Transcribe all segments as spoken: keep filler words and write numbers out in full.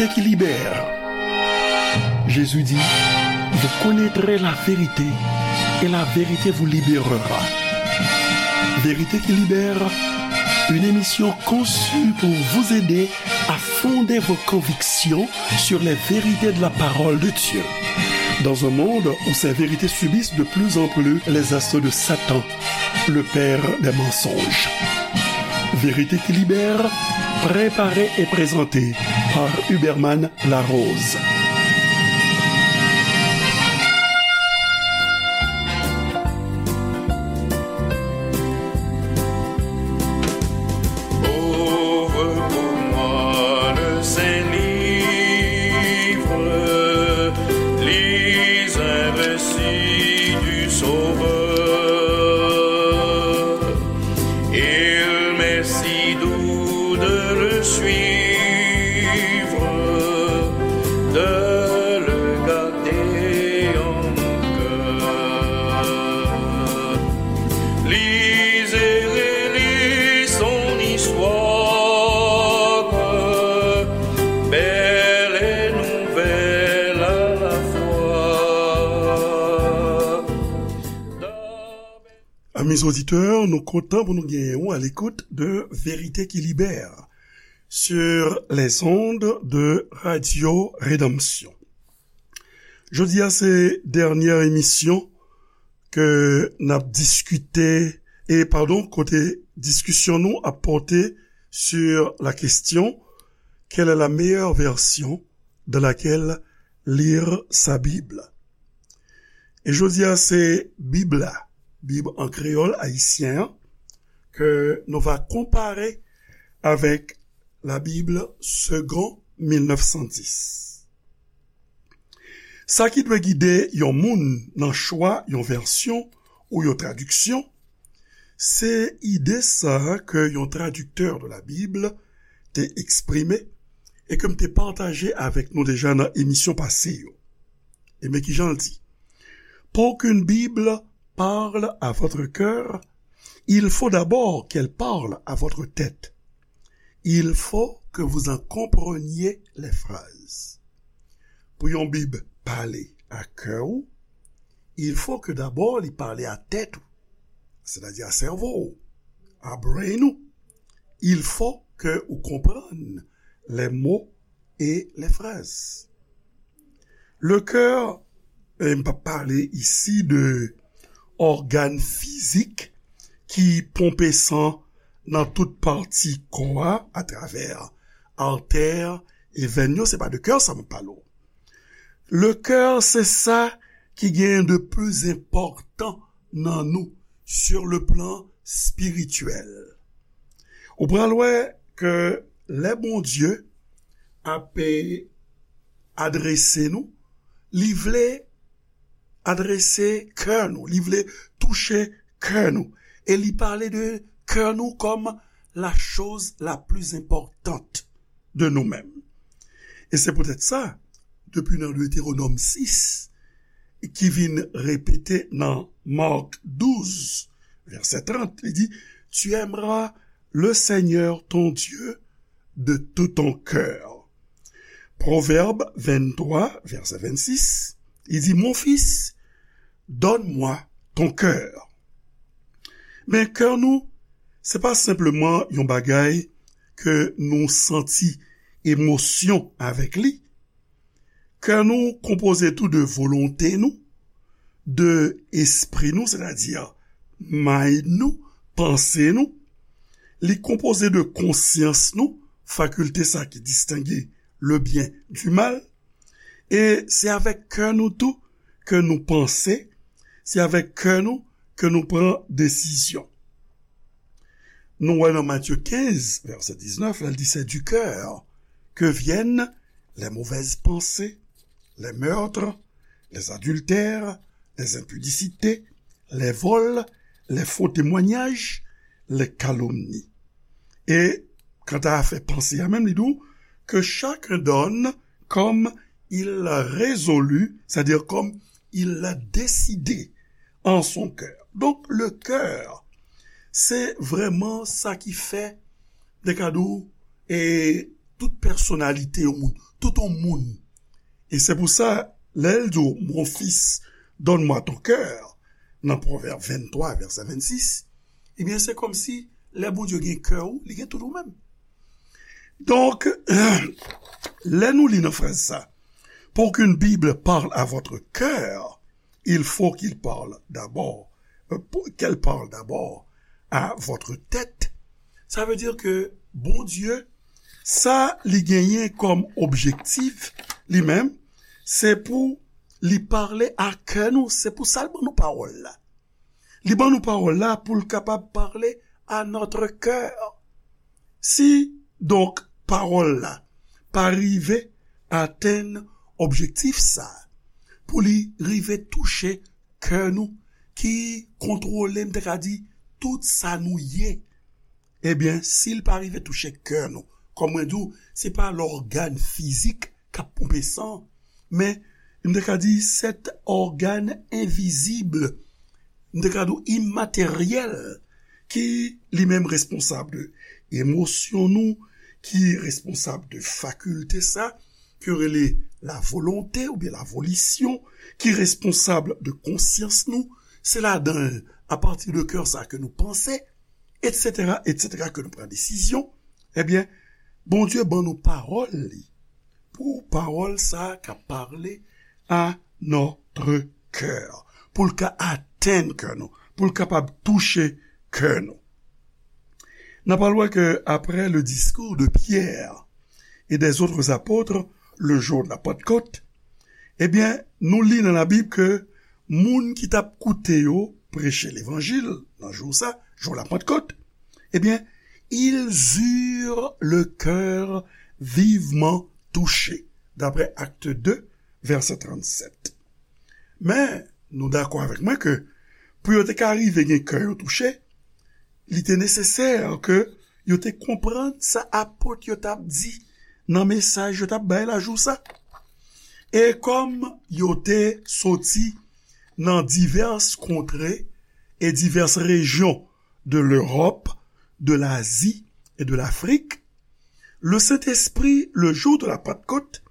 qui libère. Jésus dit, vous connaîtrez la vérité et la vérité vous libérera. Vérité qui libère, une émission conçue pour vous aider à fonder vos convictions sur les vérités de la parole de Dieu. Dans un monde où ces vérités subissent de plus en plus les assauts de Satan, le père des mensonges. Vérité qui libère, préparée et présentée par Huberman Larose. Ouvre pour moi le Saint-Livre, lis un récit du Sauveur. Il m'est si doux de le suivre, de le garder en mon cœur. Lis et relis son histoire, belle et nouvelle à la fois. Amis auditeurs, nou kontan pou nou genyen w à l'écoute de Vérité qui libère sur les ondes de Radio Rédemption. Jodi a se dènyè emisyon ke n ap diskite, e padon, kote diskisyon nou ap pòte sur la question, quelle est la meilleure version dans laquelle lire sa Bible? E jodi a se Bib la, Bib an kreyòl ayisyen an, ke nou va konpare avèk la Bible Segond mil nèf san dis. Sa ki dwe gide yon moun nan chwa yon vèsyon ou yon tradiksyon, se ide sa a ke yon tradiktè de la Bible te eksprime e ke m te pataje avèk nou deja nan emisyon pase yo. E men ki jan l di, pour qu'une Bible parle à votre cœur, il faut d'abord qu'elle parle à votre tête. Il faut que vous en compreniez les phrases. Pou yon Bib pale a kè ou, il faut que d'abord li pale a tèt ou, c'est-à-dire à cerveau, à brain ou. Il faut que ou konprann les mots et les phrases. Le cœur, e m p ap pale isi de ògàn fizik ki ponpe san nan tout pati kò a, atravè artè e venn yo, se pa de cœur sa m ap pale w. Le cœur, se sa ki gen de pli enpòtan nan nou sur le plan spirituel. Ou pral wè ke lè Bondye ap adrese nou, li vle adrese kè nou, li vle touche kè nou. E li pale de kè nou kòm la chose la plus importante de nous-mêmes. E se poutèt sa, depi nan Deutéronome sis, ki vin repete nan Mark douz, vèsè trant, li di, tu aimeras le Seigneur ton Dieu de tout ton cœur. Pwovèb venntwa, vèsè vennsis, li di, mon fils, donne-moi ton cœur. Men kè nou, se pa senpleman yon bagay ke nou santi emosyon avèk li. Kè nou konpoze tou de volonte nou, de espri nou, sètadi mind nou, panse nou. Li konpoze de konsyans nou, fakilte sa ki distenge le bien du mal. E se avèk kè nou tou ke nou panse, se avèk kè nou ke nou pran desizyon. Nou wè nan Matye kenz, vèsè diznèf, la, li di, c'est du cœur que viennent les mauvaises pensées, les meurtres, les adultères, les impudicités, les vols, les faux témoignages, les calomnies. E kanta afè panse a menm, li di w, que chacun donne comme il l'a résolu, c'est-à-dire comme il l'a décidé en son cœur. Donk, le cœur, se vrèman sa ki fè, de ka di w, e tout pèsonalite yon moun, tout yon moun. E se pou sa, lè l di w, mon fils, donne-moi ton cœur, nan Pwovèb venntwa, vèsè vennsis, ebyen, se kòmsi lè Bondye gen kè w, li gen tout ou menm. Donk, lè nou li nan fraz sa, pour qu'une Bible parle à votre cœur, il faut qu'il parle d'abord, euh, pour- qu'elle parle d'abord à votre tête. Sa vle di ke Bondye, sa li genyen kòm objektif, li menm, se pou li pale a kè nou, se pou sa l ban nou pawòl la. Li ban nou pawòl la pou l kapab pale à notre cœur. Si, donk, pawòl la pa rive atenn objektif sa, pou li rive touche kè nou, ki kontwole, m te ka di, tout sa nou ye, ebyen, si l pa rive touche kè nou, kòm mwen di w, se pa lògàn fizik k ap ponpe san, men m te ka di, sèt ògàn envizib, m te ka di w imateryèl, ki li menm responsab de emosyon nou, ki responsab de fakilte sa, ke yo rele la volonte oubyen la volition, ki responsab de konsyans nou, se ladan l, apati de kè sa ke nou panse, etsetera, etsetera, ke nou pran desizyon, ebyen, Bondye ban nou pawòl li, pou pawòl sa ka pale à notre cœur, pou l ka atenn kè nou, pou l kapab touche kè nou. N ap al wè ke après le discours de Pierre et des autres apôtres, le jour de la Pentecôte, ebyen, nou li nan Labib ke moun ki t ap koute yo preche levanjil nan jou sa, jou la Pentecôte, ebyen, ils eurent le cœur vivement touché, d'après Acte deux, vèsè trannsèt. Men, nou dakò avèk mwen ke pou yo te ka rive gen kè yo touche, li te nesesè ke yo te konprann sa apot yo t ap di nan mesaj yo t ap bay la jou sa. E kòm yo te soti nan divès kontre e divès rejyon de Lewòp, de Lazi e de Lafrik, le Saint-Esprit, le jour de la Pentecôte,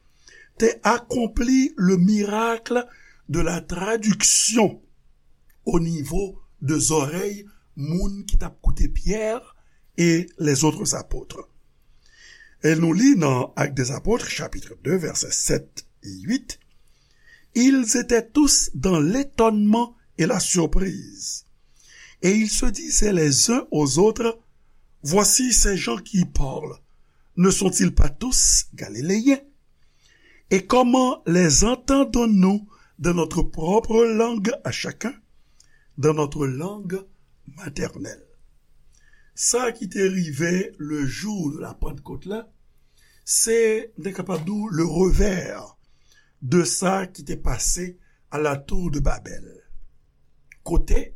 te akonpli le miracle de la traduction au niveau de zòrèy moun ki t ap koute Pyè e les autres apôtres. E nou li nan Actes des Apôtres, chapitre deux, vèsè sèt e uit, ils étaient tous dans l'étonnement et la surprise. Et ils se disaient les uns aux autres, voici ces gens qui parlent. Ne sont-ils pas tous galiléens ? Et comment les entendons-nous dans notre propre langue à chacun, dans notre langue maternelle ? Sa ki te rive le jour de la Pentecôte la, se, nou te kapab di w, le revers de sa ki te pase à la tour de Babel. Kote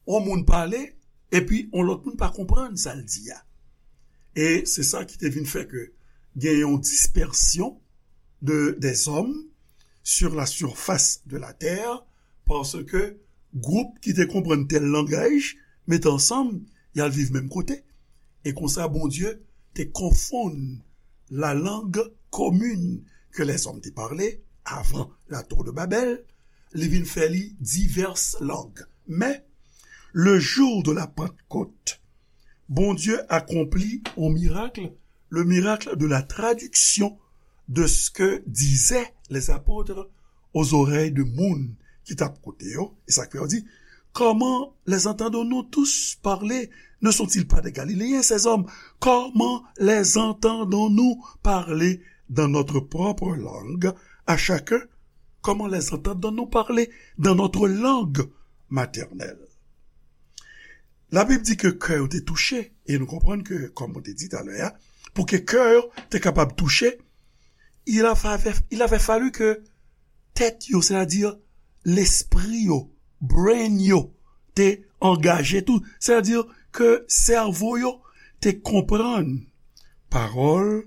yon moun pale, epi yon lòt moun pa konprann sa l di a. E se sa ki te vin fè ke gen yon dispèsyon de, des hommes sur la surface de la terre, paske gwoup ki te konprann tèl langaj, mete ansanm, y al viv menm kote. E konsa, Bondye te konfonn la langue commune que les hommes te parlé avant la tour de Babel, li vin fè li divès lang. Men, le jour de la Pentecôte, Bondye akonpli yon mirak, le miracle de la traduction de ce que disaient les apôtres aux oreilles de moun ki t ap koute yo. E sa k fè yo di, comment les entendons-nous tous parler ? Ne sont-ils pas des Galiléens, ces hommes ? Comment les entendons-nous parler dans notre propre langue à chacun ? Comment les entendons-nous parler dans notre langue maternelle ? Labib di ke kè yo te touche, e nou konprann ke, kòm mwen te di talè a, pou ke kè yo te kapab touche, il avait, il avait fallu que tèt yo, sètadi lespri yo, brain yo, te angaje tou, sètadi ke sèvo yo te konprann pawòl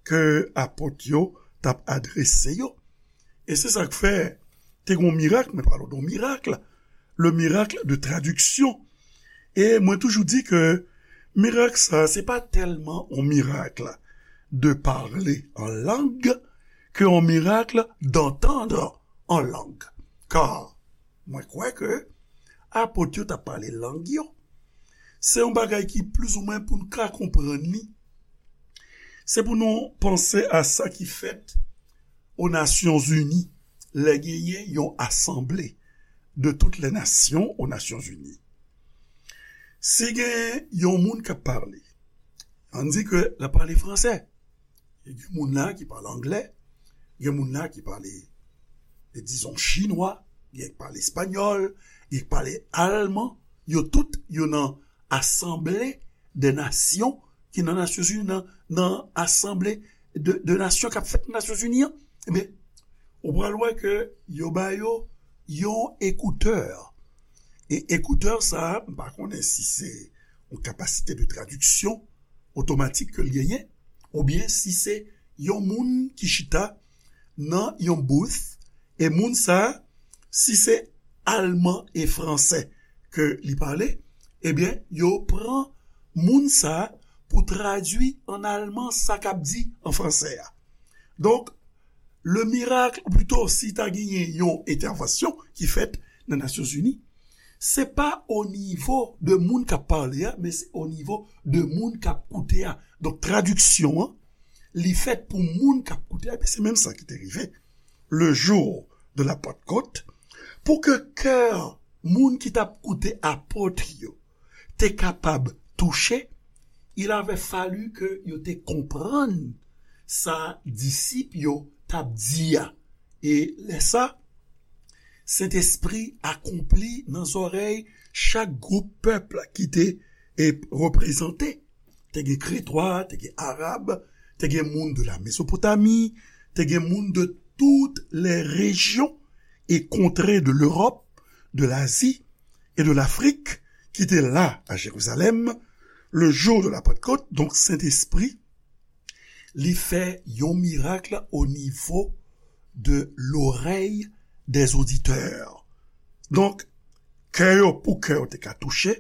ke apot yo t ap adrese yo. E se sa k fè te gen yon mirak, mwen pale w de yon mirak, le miracle de traduction. E mwen toujou di ke mirak sa, se pa tèlman yon mirak de parler en langue, qu'un miracle d'entendre en langue. Car, mwen kwè ke apot yo t ap pale lang yo. Se yon bagay ki plizoumwen pou n ka konprann li. Se pou nou panse a sa ki fèt o Nasyonzini, lè genyen yon asanble de toutes les nations o Nasyonzini. Si gen yon moun k ap pale, ann di ke l ap pale fransè. Gen moun la ki pale anglè, gen moun la ki pale, dizon, chinwa, gen ki pale espanyòl, gen ki pale alman. Yo tout, yo nan asanble de nasyon ki nan Nasyonzini, nan, nan asanble de, de nasyon k ap fèt nan Nasyonzini an. Ebyen, ou pral wè ke yo ba yo yon ekoutè. E ekoutè sa a, m pa konnen si se yon kapasite de tradiksyon otomatik ke l genyen, oubyen si se yon moun ki chita nan yon booth, e moun sa a, si se alman e fransè ke li pale, ebyen, yo pran moun sa a pou tradui an alman sa k ap di an fransè a. Donk, le miracle, ou plito, si ta genyen yon entèvansyon ki fèt nan Nasyonzini, se pa o nivo de moun k ap pale a, men se o nivo de moun k ap koute a. Donk, tradiksyon an, li fèt pou moun k ap koute a, epi se menm sa ki te rive le jour de la Pentecôte, pou ke kè moun ki t ap koute apot yo te kapab touche, il avait fallu ke yo te konprann sa disip yo t ap di a. E lè sa, Sentespri akonpli nan zòrèy chak gwoup pèp ki te, e, reprezante. Te gen Kretwa, te gen Arab, te gen moun de la Mezopotami, te gen moun de toutes les régions et contrées de l'Europe, de l'Asie et de l'Afrique ki te la a Jerizalèm le jour de la Pentecôte. Donk, Sentespri, li fè yon mirak o nivo de l'oreille des auditeurs. Donk, kè yo, pou kè yo te ka touche,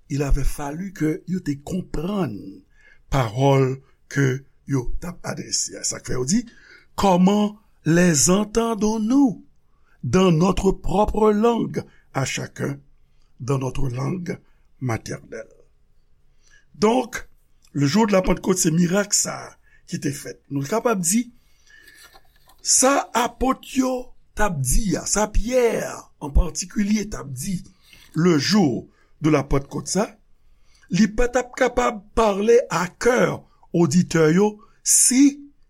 il avait fallu ke yo te konprann pawòl ke yo t ap adrese a. Sa k fè yo di, comment les entendons-nous dans notre propre langue à chacun, dans notre langue maternelle? Donk, le jour de la Pentecôte, se mirak sa a ki te fèt. Nou kapab di, sa apot yo t ap di a, sa Pyè an patikilye t ap di, le jour de la Pentecôte sa, li pa t ap kapab pale a kè oditè yo si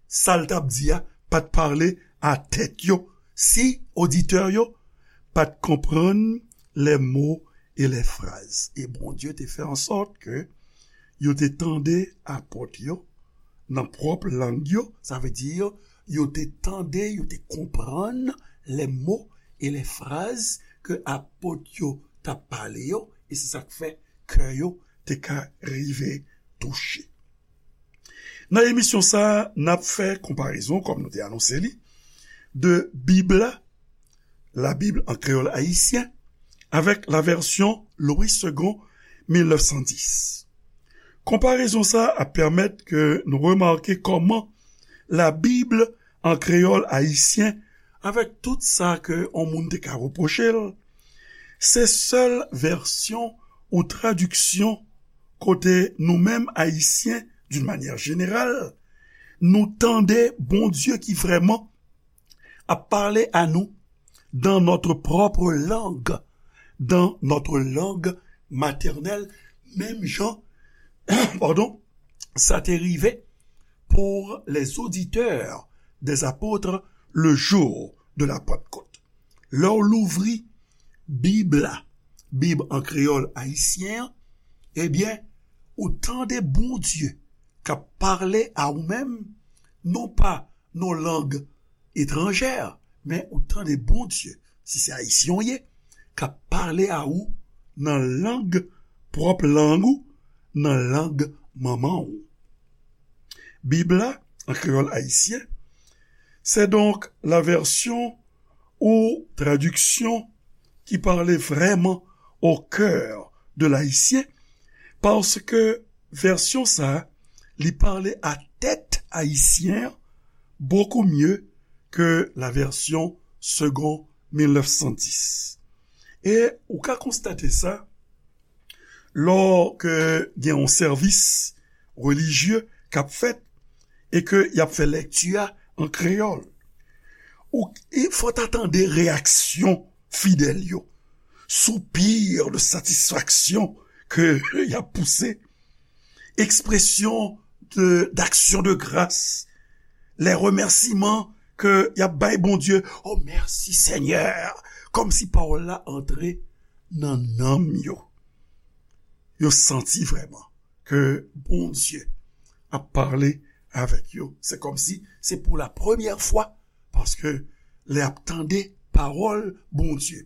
sa l t ap di a pa t pale a tèt yo, si oditè yo pa t konprann les mots et les phrases. E Bondye te fè an sòt ke yo te tande apot yo nan pwòp lang yo, sa vle di yo te tande, yo te konprann les mots et les phrases ke apot yo t ap pale yo, e se sa k fè kè yo te ka rive touche. Nan emisyon sa a, n ap fè konparezon, kòm nou te anonse li, de Bib la, la Bible en créole haïtien, avec la version Louis Segond mil nèf san dis. Konparezon sa a ap pèmèt ke nou remake kòman la Bible en créole haïtien, avèk tout sa ke yon moun te ka repwoche l, se sèl vèsyon ou tradiksyon kote nou menm Ayisyen, d'une manière générale, nou tande Bondye ki vrèman ap pale a nou dans notre propre langue, dans notre langue maternelle, menm jan, pardon, sa te rive pour les auditeurs des apôtres le jour de la Pentecôte. Lè w louvri Bib la, Bib an kreyòl ayisyen an, ebyen, ou tande Bondye k ap pale a ou menm, non pa nan lang etranjè, men ou tande Bondye, si se ayisyen w ye, k ap pale a ou nan lang, pwòp lang ou, nan lang manman w. Bib la, an kreyòl ayisyen, c'est donc la version ou traduction qui parle vraiment au cœur de l'Haïtien, paske vèsyon sa a, li pale a tèt ayisyen an, beaucoup mieux que la version Segond mil nèf san dis. E ou ka konstate sa lò ke gen yon sèvis relijye k ap fèt e ke y ap fè lèkti a an kreyòl. Ou, e fò ta tande reyaksyon fidèl yo, soupir de satisfaksyon ke y ap pouse, ekspresyon de, d'action de grâce, les remerciements ke y ap bay Bondye, oh, mèsi Senyè, kòmsi pawòl la antre nan nanm yo. Yo santi vrèman ke Bondye ap pale avèk yo. Se kòmsi se pou la premyè fwa, paske lè y ap tande pawòl Bondye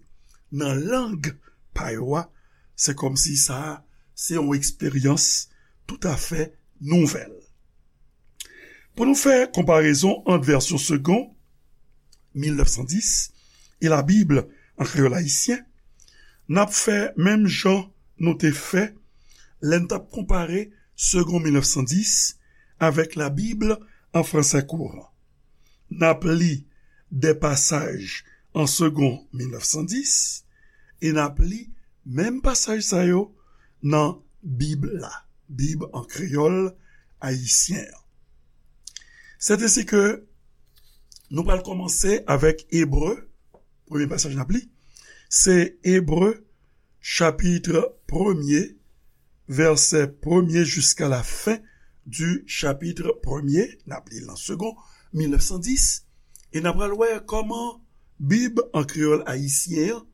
nan lang pa yo a, se kòmsi sa a se yon eksperyans toutafè nouvèl. Pou nou fè konparezon ant vèsyon Segond mil nèf san dis e Labib an kreyòl ayisyen, n ap fè menm jan nou te fè lè n t ap konpare Segond mil nèf san dis avèk Labib an fransè kouran. N ap li de pasaj an Segond mil nèf san dis e n ap li menm pasaj sa yo nan Bib la, Bib an kreyòl ayisyen an. Sètensike nou pral kòmanse avèk Ebre, premye pasaj n ap li, se Ebre chapit premye, vèsè premye jiska la fen di chapit premye, n ap li l nan Segond mil nèf san dis, e n ap pral wè kòman Bib an kreyòl ayisyen an,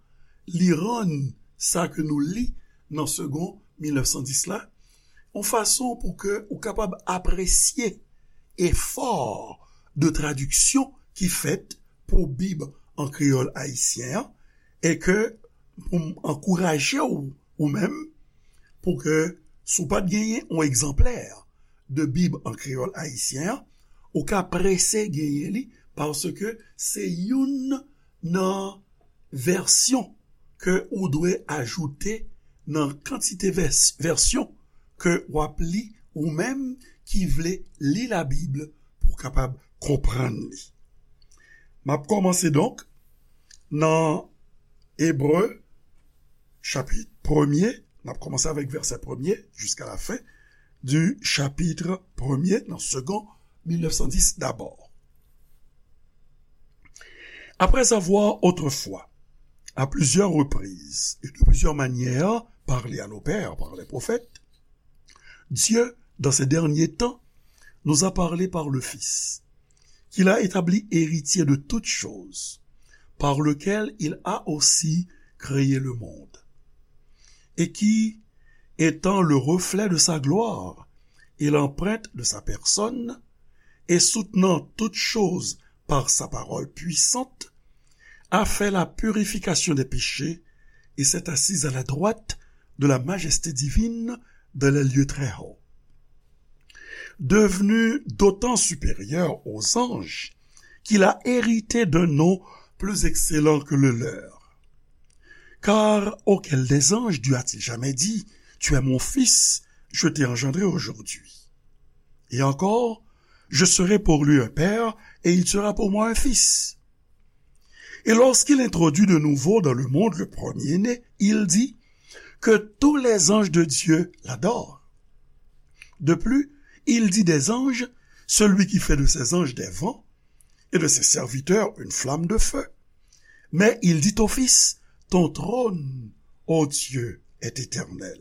li rann sa ke nou li nan Segond mil nèf san dis la, yon fason pou ke ou kapab apresye efò de tradiksyon ki fèt pou Bib an kreyòl ayisyen an, e ke pou m ankouraje w, ou menm, pou ke, si w pa t genyen yon egzanplè de Bib an kreyòl ayisyen an, ou ka prese genyen li, paske se youn nan vèsyon ke ou dwe ajoute nan kantite vès-, vèsyon ke w ap li, ou menm ki vle li Labib pou w kapab konprann li. M ap kòmanse donk nan Ebre, chapit premye, n ap kòmanse avèk vèsè premye jiska la fen di chapit premye nan Segond mil nèf san dis dabò. Après avoir autrefois, à plusieurs reprises et de plusieurs manières, parlé à nos pères par les prophètes, Dieu, dans ces derniers temps, nous a parlé par le Fils, qu'il a établi héritier de toutes choses, par lequel il a aussi créé le monde, et qui, étant le reflet de sa gloire et l'empreinte de sa personne, et soutenant toutes choses par sa parole puissante, a fait la purification des péchés et s'est assis à la droite de la majesté divine dans les lieux très hauts. Devenu d'autant supérieur aux anges qu'il a hérité d'un nom plus excellent que le leur. Car auquel des anges Dieu a-t-il jamais dit, tu es mon fils, je t'ai engendré aujourd'hui. Et encore, je serai pour lui un père et il sera pour moi un fils. Et lorsqu'il introduit de nouveau dans le monde le premier-né, il dit que tous les anges de Dieu l'adorent. De plus, il dit des anges, celui qui fait de ses anges des vents et de ses serviteurs une flamme de feu. Mais il dit au Fils, ton trône, ô Dieu, est éternel.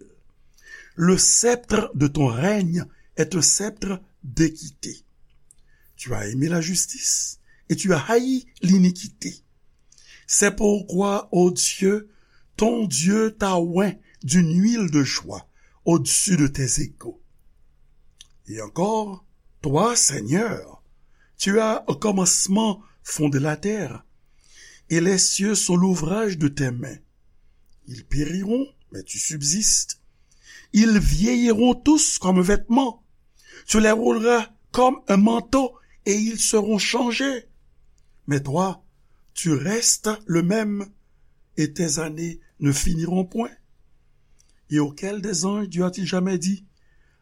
Le sceptre de ton règne est un sceptre d'équité. Tu as aimé la justice et tu as haï l'iniquité. C'est pourquoi, ô Dieu, ton Dieu t'a oint d'une huile de joie au-dessus de tes égaux. Et encore, toi, Seigneur, tu as au commencement fondé la terre, et les cieux sont l'ouvrage de tes mains. Ils périront, mais tu subsistes. Ils vieilliront tous comme vêtements. Tu les rouleras comme un manteau et ils seront changés. Mais toi, tu restes le même et tes années ne finiront point. Et auquel des anges Dieu a-t-il jamais dit,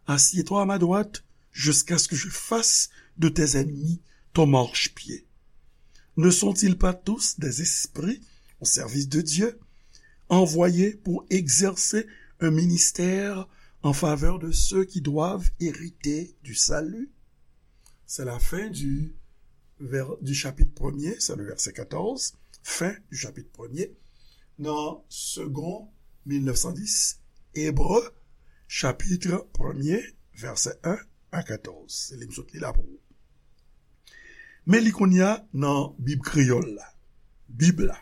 assieds-toi à ma droite jusqu'à ce que je fasse de tes ennemis ton marchepied. Ne sont-ils pas tous des esprits au service de Dieu, envoyés pour exercer un ministère en faveur de ceux qui doivent hériter du salut? C'est la fin du, ver- du chapitre premier, c'est le verset quatorze, fin du chapitre premier, dans Second mille neuf cent dix, Hébreux, chapitre premier, verset un à quatorze. Se li m sot li la pou ou. Men li kounye a nan Bib kreyòl la. Bib la.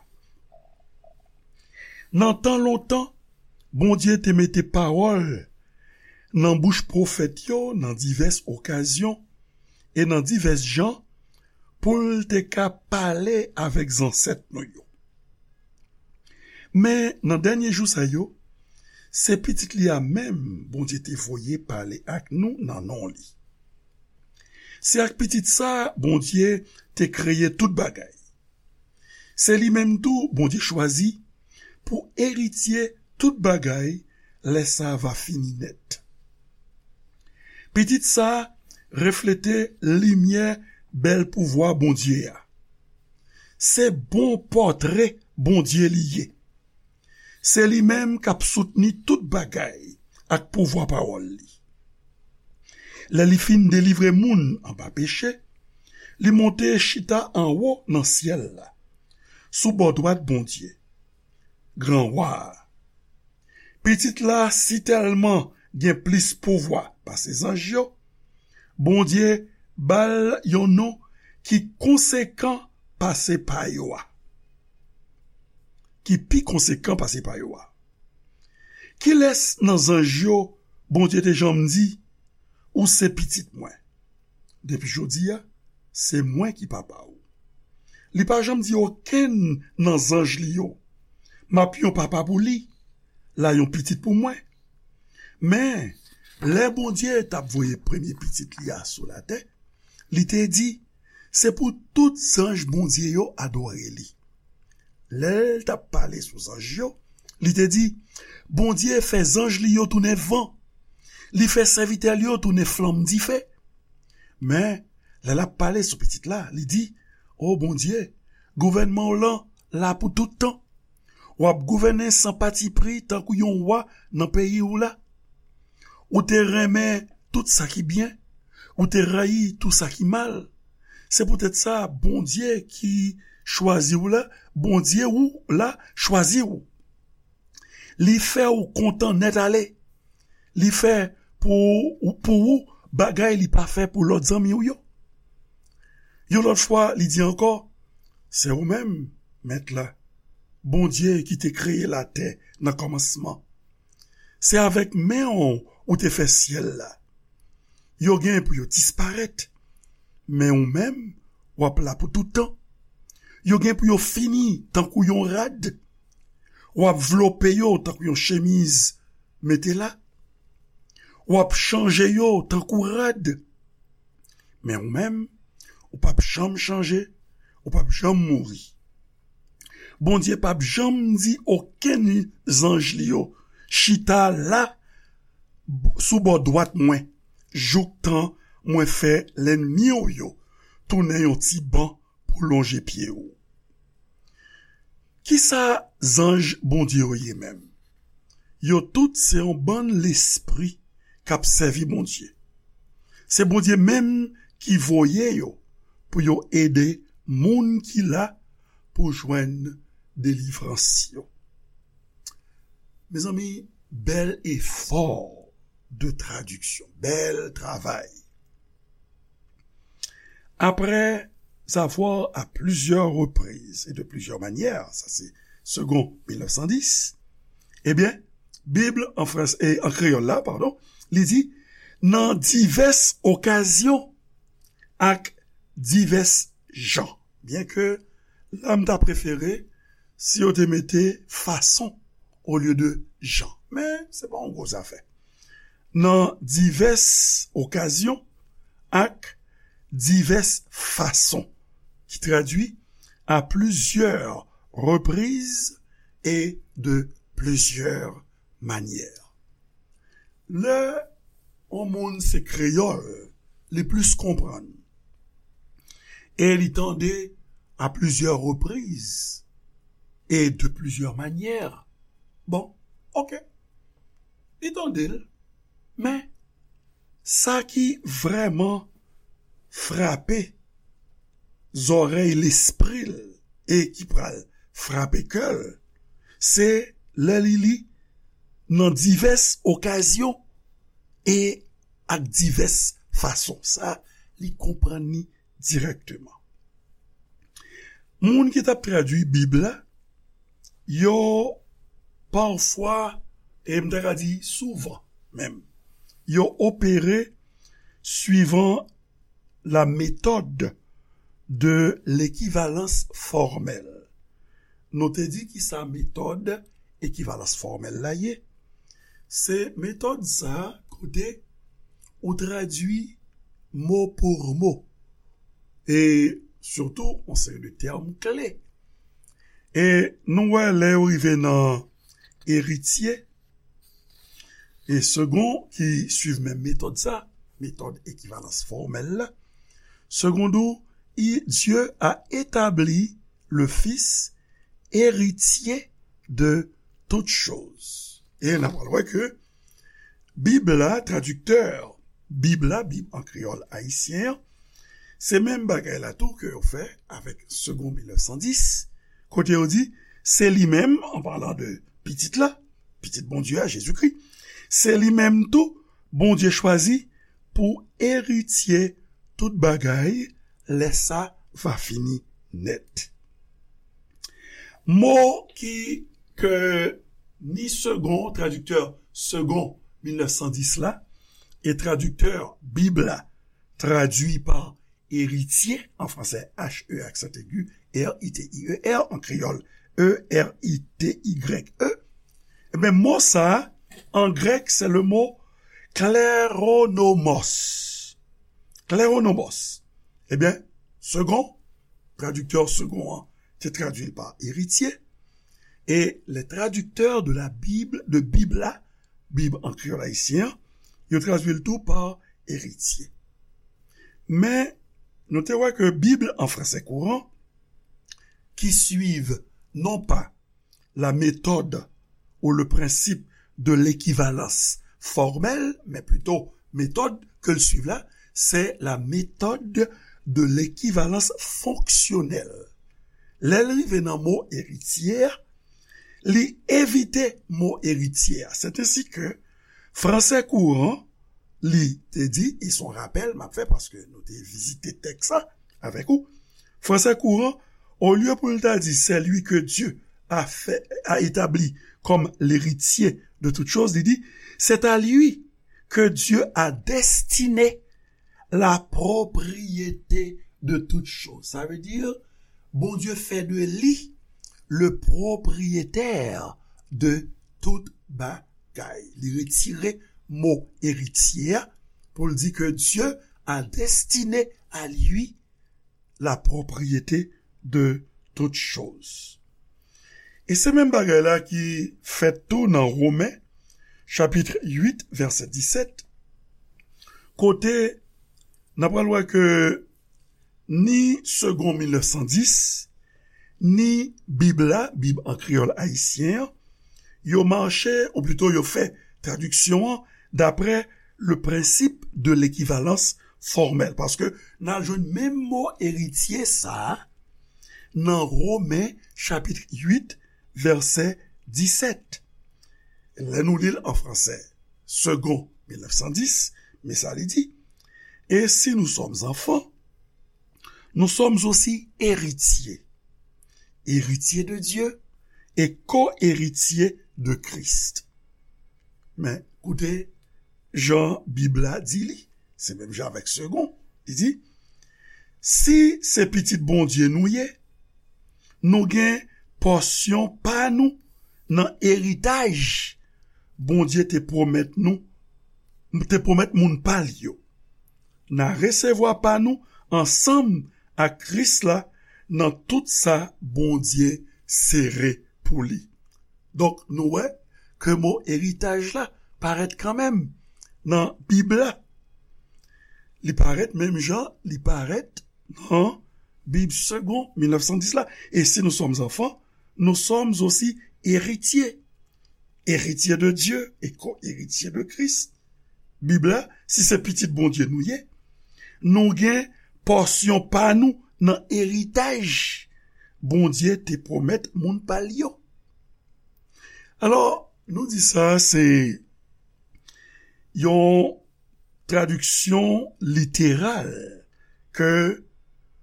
Nan tan lontan, Bondye te mete pawòl nan bouch pwofèt yo nan divès okazyon e nan divès jan pou l te ka pale avèk zansèt nou yo. Men nan dènye jou sa yo, se Pitit li a menm Bondye te voye pale ak nou nan non li. Se ak Pitit sa a Bondye te kreye tout bagay. Se li menm tou Bondye chwazi pou eritye tout bagay lè sa a va fini nèt. Pitit sa a reflete limyè bèl pouvwa Bondye a. Se bon pòtre Bondye li ye. Se li menm k ap soutni tout bagay ak pouvwa pawòl li. Lè li fin delivre moun anba peche, li monte chita anwo nan syèl la, sou bò dwat Bondye, Gran Wa a. Pitit la sitèlman gen plis pouvwa pase zanj yo, Bondye ba l yon non ki konsekan pase pa yo a. Ki pi konsekan pase pa yo a. Kilès nan zanj yo Bondye te janm di, "Ou se pitit mwen"? Depi jodi a, se mwen ki papa w. Li pa janm di okenn nan zanj li yo, "M ap yon papa pou li, l a yon pitit pou mwen." Men, lè Bondye t ap voye premye pitit li a sou latè, li te di, "Se pou tout zanj Bondye yo adore li." Lè l t ap pale sou zanj yo, li te di, "Bondye fè zanj li yo tounen van. Li fè sèvitè li yo tounen flanm dife." Men, lè l ap pale sou pitit la, li di, "O Bondye, gouvènman w lan la pou tout tan. W ap gouvène san patipri tankou yon wa nan peyi w la. Ou te renmen tout sa ki byen, ou te rayi tou sa ki mal. Se poutèt sa, Bondye ki chwazi w la, Bondye ou la chwazi w. Li fè w kontan nèt ale. Li fè pou, pou ou bagay li pa fè pou lòt zanmi w yo." Yon lòt fwa, li di ankò, "Se ou menm, Mèt la, Bondye ki te kreye latè nan kòmansman. Se avèk men w ou te fè syèl la. Yo gen pou yo disparèt, men ou menm, w ap la pou tout tan. Yo gen pou yo fini tankou yon rad. W ap vlope yo tankou yon chemiz mete la. W ap chanje yo tankou rad. Men ou menm, ou p ap janm chanje, ou p ap janm mouri." Bondye p ap janm di okenn zanj li yo, "Chita la sou bò dwat mwen, jouktan mwen fè lènmi w yo tounen yon ti ban pou lonje pye w." Kisa zanj Bondye yo ye menm? Yo tout se yon bann lespri k ap sèvi Bondye. Se Bondye menm ki voye yo pou yo ede moun ki la pou jwenn delivrans yo. Mezanmi, bèl efò de tradiksyon, bèl travay. Après avoir à plusieurs reprises et de plusieurs manières, sa se Segond mil nèf san dis, ebyen, Bib an frans-, e, an kreyòl la, padon, li di, nan divès okazyon ak divès jan. Byenke la, m ta prefere si yo te mete fason olye de jan. Men, se pa yon gwo zafè. Nan divès okazyon ak divès fason, ki tradui à plusieurs reprises et de plusieurs manières. Lè yon moun se kreyòl, li plis konprann. E li tande à plusieurs reprises et de plusieurs manières. Bon, ok. Li tande l, men sa ki vrèman frape zòrèy lespri l e ki pral frape kè l, se lè li li nan divès okazyon e ak divès fason. Sa, li konprann li dirèkteman. Moun ki t ap tradui Bib la, yo pafwa, e m ta ka di souvan menm, yo opere suivant la méthode de l'équivalence formelle. Nou te di ki sa metòd ekivalans fòmèl la ye. Se metòd sa kote ou tradui mo pou mo. E sitou, yon seri de tèm kle. E nou wè lè yo rive nan eritye, e segon ki suiv menm metòd sa, metòd ekivalans fòmèl la, segon di w, Dieu a établi le Fils héritier de toutes choses. E n ap wè ke Bib la, tradiktè Bib la, Bib an kreyòl ayisyen an, se menm bagay la tou ke yo fè avèk Segond mil nèf san dis, kote yo di, se li menm, an palan de pitit la, pitit Bondye a, Jezikri, se li menm tou, Bondye chwazi pou eritye tout bagay, lè sa va fini nèt. Mo ki, ke ni segon, tradiktè segon mil nèf san dis la, e tradiktè Bib la, tradui pa eritye, an fransè, H E aksan egi, R I T I E R, an kreyòl, E R I T Y E. Ebyen, mo sa, an grèk, se le mo kleronomos. Kleronomos. Ebyen, segon, tradiktè segon an, te tradui l pa eritye. E les traducteurs de la Bible, de Bib la, Bib an kreyòl ayisyen an, yo tradui l tou pa eritye. Men, nou te wè ke Bib an fransè kouran, ki suiv non pa la méthode ou le principe de l'équivalence formelle, men plito metòd ke l suiv la, se la méthode de l'équivalence fonctionnelle. Lè l rive nan mo eritye a, li evite mo eritye a. Se ensi ke fransè kouran, li te di, e se yon rapèl m ap fè paske nou te vizite tèks sa avèk ou. Fransè kouran, olye pou l ta di, c'est lui que Dieu a fait, a établi comme l'héritier de toutes choses, li di, c'est à lui que Dieu a destiné la propriété de toutes choses. Sa vle di, Bondye fè de li le propriétaire de tout bagay. Li retire mo eritye a pou l di ke Dieu a destiné à lui la propriété de toutes choses. E se menm bagay la ki fèt tou nan Women, chapit uit, vèsè disèt, kote n ap pral wè ke ni Segond mil nèf san dis, ni Bib la, Bib an kreyòl ayisyen an, yo mache, ou plito yo fè tradiksyon an daprè le principe de l'équivalence formelle. Paske n al jwenn menm mo eritye sa a nan Women chapit uit, vèsè disèt. Lè nou li l an fransè, Segond mil nèf san dis, men sa li di, et si nous sommes enfants, nous sommes aussi héritiers, héritiers de Dieu et co-héritiers de Christ. Men, koute jan Bib la di li, se menm jan avèk Segond, li di, si se pitit Bondye nou ye, nou gen pòsyon pa nou nan eritaj Bondye te pwomèt nou, te pwomèt moun pa l yo. N a resevwa pa nou ansanm ak Kris la nan tout sa Bondye sere pou li. Donk, nou wè ke mo eritaj la parèt kanmenm nan Bib la. Li parèt menm jan li parèt nan Bib Segond mil nèf san dis la. Et si nous sommes enfants, nous sommes aussi héritiers. Héritiers de Dieu et co-héritiers de Christ. Bib la, si se pitit Bondye nou ye, nou gen pòsyon pa nou nan eritaj Bondye te pwomèt moun pa l yo. Alò, nou di sa, se yon tradiksyon literal ke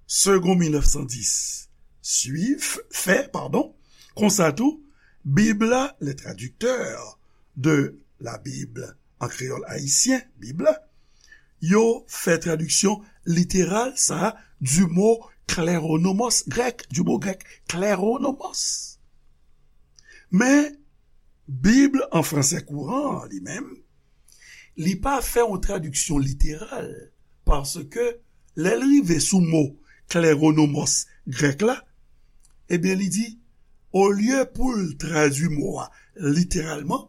Segond mil nèf san dis suiv, fè, padon. Konsa tou, Bib la, les traducteurs de la Bible en créole haïtien, Bib la, yo fè tradiksyon literal sa du mot kleronomos grèk, du mot grec kleronomos. Men, Bib an fransè kouran an li menm, li pa fè yon tradiksyon literal, paske lè l rive sou mo kleronomos grèk la, ebyen, li di, olye pou l tradui mo a literalman,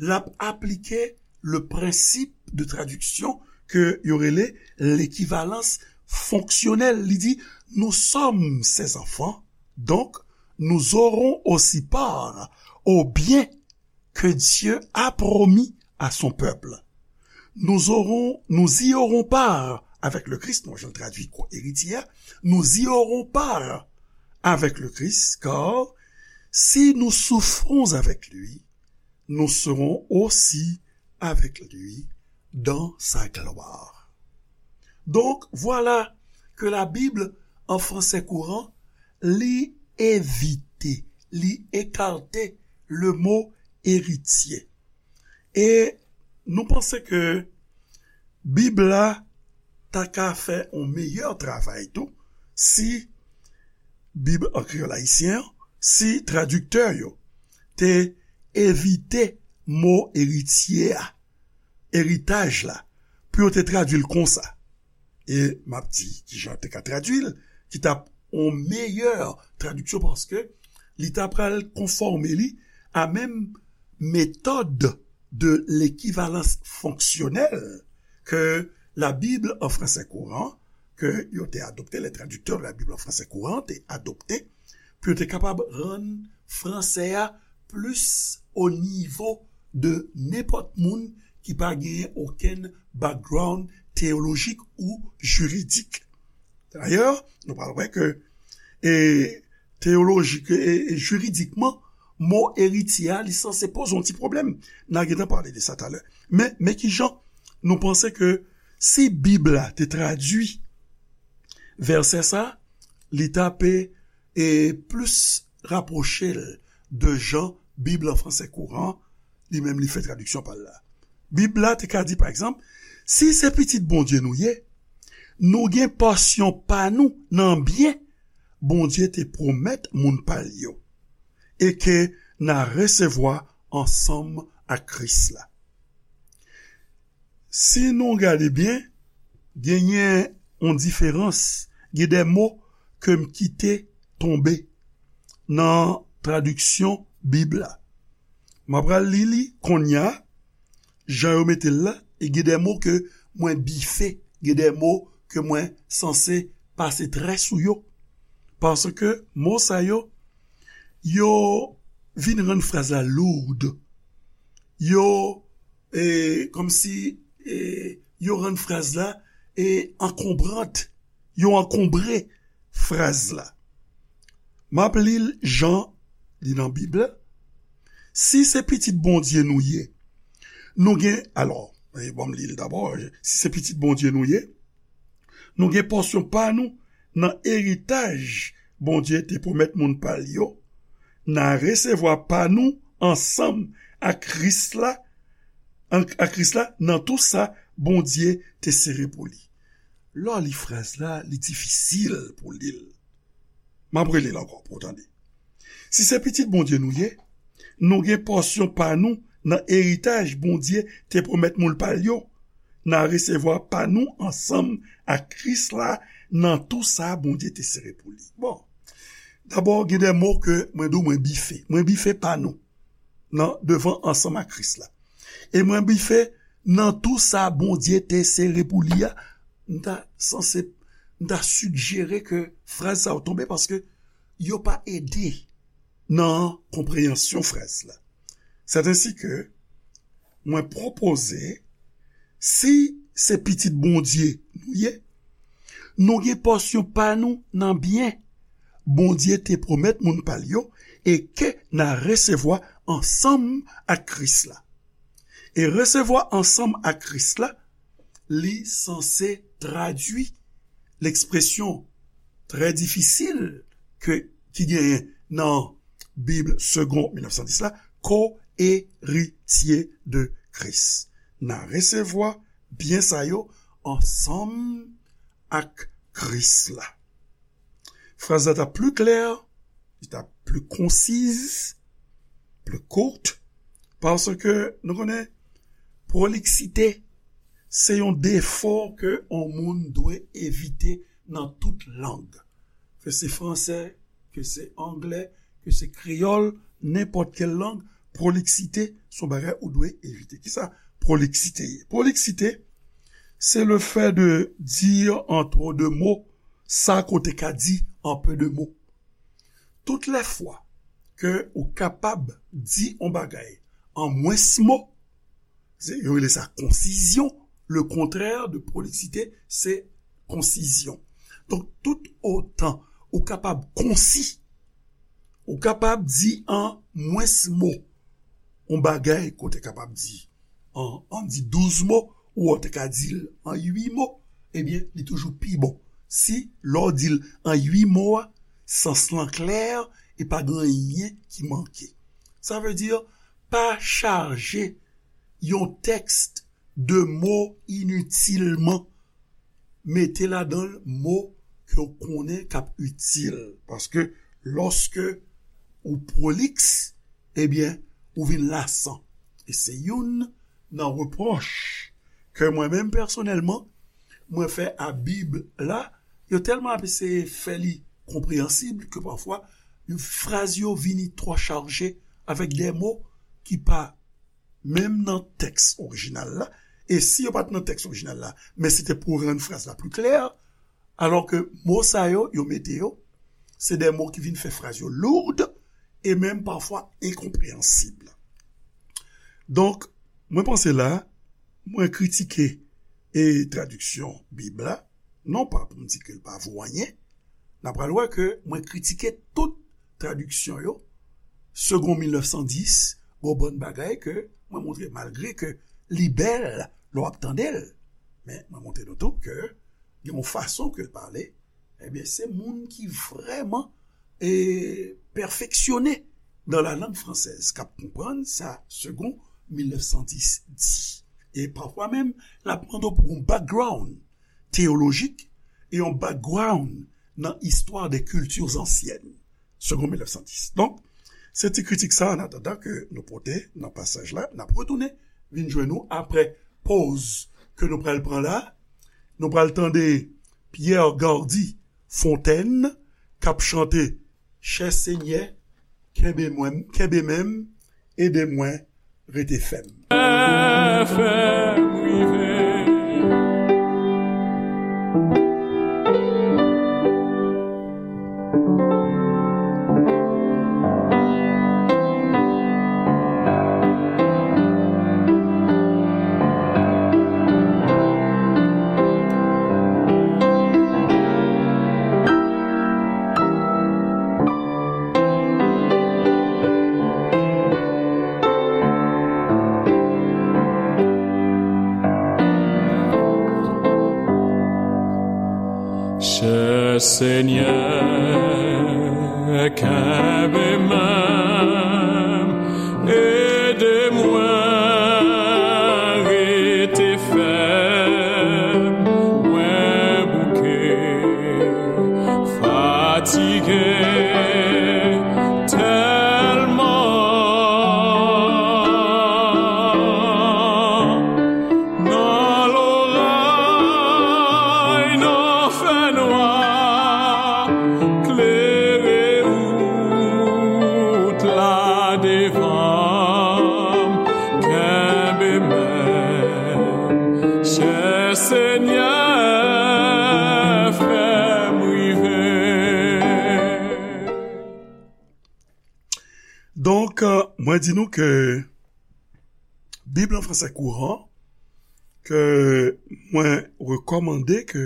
l ap aplike le principe de traduction ke yo rele l'équivalence fonctionnelle. Li di, nous sommes ses enfants, donc nous aurons aussi part au bien que Dieu a promis à son peuple. Nous aurons, nous y aurons part avec le Christ, mwen jan tradui ko-eritye a, nous y aurons part avec le Christ, car si nous souffrons avec lui, nous serons aussi avec lui dans sa gloire. Donc, voilà que la Bible en français courant, li evite, li ekate le mo eritye. E nou panse ke Bib la ta ka fè yon meyè travay tou si Bib an kreyòl ayisyen an, si tradiktè yo te evite mo eritye a, eritaj la, pou yo te tradui l konsa. E m ap di kijan yo te ka tradui l, ki t ap yon meyè tradiksyon, paske li ta pral konfòme li a menm méthode de l'équivalence fonctionnelle que la Bible en français courant, ke yo te adopte, les traducteurs de la Bible en français courant te adopte, pou yo te kapab rann fransè a plis o nivo de nenpòt moun ki pa genyen okenn background teyolojik ou jiridik. Dayè, nou pral wè ke, e, teyolojik e, e jiridikman, mo eritye a, li sanse poze yon ti pwoblèm. N a gentan pale de sa talè. Men, men kijan nou panse ke si Bib la te tradui vèsè sa, li ta pe, e, plis rapwoche l de jan Bib an fransè kouran, li menm li fè tradiksyon pa l la. Bib la te ka di, pa egzanp, si se pitit Bondye nou ye, nou gen pòsyon pa nou nan byen Bondye te pwomèt moun pa l yo, e ke n a resevwa ansanm ak Kris la. Si nou gade byen, genyen yon diferans, gen de mo ke m kite tonbe nan tradiksyon Bib la. M ap pral li li kounye a, jan yo mete l la, e gen de mo ke mwen bife, gen de mo ke mwen sanse pase trè sou yo. Paske mo sa yo, yo vin rann fraz la lourd. Yo, e, kòmsi, e, yo rann fraz la, e, ankonbrant. Yo ankonbre fraz la. M ap li l jan li nan Bib la. Si se pitit Bondye nou ye, nou gen, alò, e, ban m li l dabò, si se pitit Bondye nou ye, nou gen pòsyon pa nou nan eritaj Bondye te pwomèt moun pa l yo, n a resevwa pa nou ansanm ak Kris la, an-, ak Kris la, nan tou sa Bondye te sere pou li. Lè w li fraz la, li difisil pou w li l. M ap rele l ankò pou w tande. Si se pitit Bondye nou ye, nou gen pòsyon pa nou nan eritaj Bondye te pwomèt moun pa l yo. N a resevwa pa nou ansanm ak Kris la nan tou sa Bondye te sere pou li. Bon, dabò, gen de mo ke mwen di w mwen bife. Mwen bife pa nou nan devan ansanm ak Kris la. E mwen bife nan tou sa Bondye te sere pou li a, m ta sanse m ta sijere ke fraz sa yo tonbe paske yo pa ede nan konpreyansyon fraz la. Sètensi ke mwen pwopoze, si se pitit Bondye nou ye, nou gen pòsyon pa nou nan byen Bondye te pwomèt moun pa l yo e ke n a resevwa ansanm ak Kris la. E resevwa ansanm ak Kris la, li sanse tradui lekspresyon trè difisil ke, ki genyen nan Bib Segond mil nèf san dis la, co-héritier de Christ. N a resevwa byen sa yo ansanm ak Kris la. Fraz la t ap pli klè, li t ap pli konsiz, pli kout, paske nou konnen proliksite se yon defo ke yon moun dwe evite nan tout lang. Ke se fransè, ke se anglè, ke se kreyòl, nenpòt kèl lang, proliksite se yon bagay ou dwe evite. Kisa proliksite ye? Proliksite, c'est le fait de dire en trop de mots sa ke w te ka di en peu de mots. Tout lè fwa ke ou kapab di yon bagay an mwens mo, se, yo rele sa konsizyon. Le contraire de proliksite, se konsizyon. Donk, tout otan ou kapab konsi, ou kapab di an mwens mo, yon bagay ke w te kapab di an, an di douz mo, ou w te ka di l an uit mo, ebyen, li toujou pi bon. Si, lè w di l an uit mo a, sans lan klè e pa gen anyen ki manke. Sa vle di, pa chaje yon tèks de mo initilman. Mete ladan l mo ke w konnen k ap itil. Paske lòske ou pwoliks, ebyen, ou vin lasan. E se youn nan repwòch ke mwen menm pèsonèlman, mwen fè a Bib la, yo tèlman ap eseye fè li konpreyansib ke pafwa, fraz yo vini twò chaje avèk de mo ki pa menm nan tèks orijinal la, e si yo pa t nan tèks orijinal la, men se te pou rann fraz la pli klè, alò ke mo sa yo, yo mete yo, se de mo ki vin fè fraz yo lourd e menm pafwa enkonpreyansib. Donk, mwen panse la, mwen kritike e tradiksyon Bib la, non pa pou m di ke l pa vo anyen, n a pral wè ke mwen kritike tout tradiksyon yo, Segond mil nèf san dis, gon bann bagay ke mwen montre malgre ke li bèl lè w ap tande l, men mwen montre nou tou ke gen yon fason ke l pale, ebyen, se moun ki vrèman, e, pèfeksyone dans la langue française k ap konprann sa Segond mil nèf san dis di. E pafwa menm, l ap mande w pou yon background teyolojik e yon background nan istwa de kilti ansyèn. Segond mil nèf san dis. Donk, se ti kritik sa, an atandan ke nou pote nan pasaj la, n ap retounen vin jwenn nou apre poz ke nou pral pran la. Nou pral tande Pierre Gardy Fontaine k ap chante Chè Senyè, kenbe mwen, kenbe men m, ede mwen rete fèm. Fè m rive. Chè Senyè, kenbe men m, ede mwen rete fèm, mwen bouke, fatige tèlman. Nan loray, nan fènwa, klere ou Mwen di nou ke Bib an fransè kouran, ke mwen rekòmande ke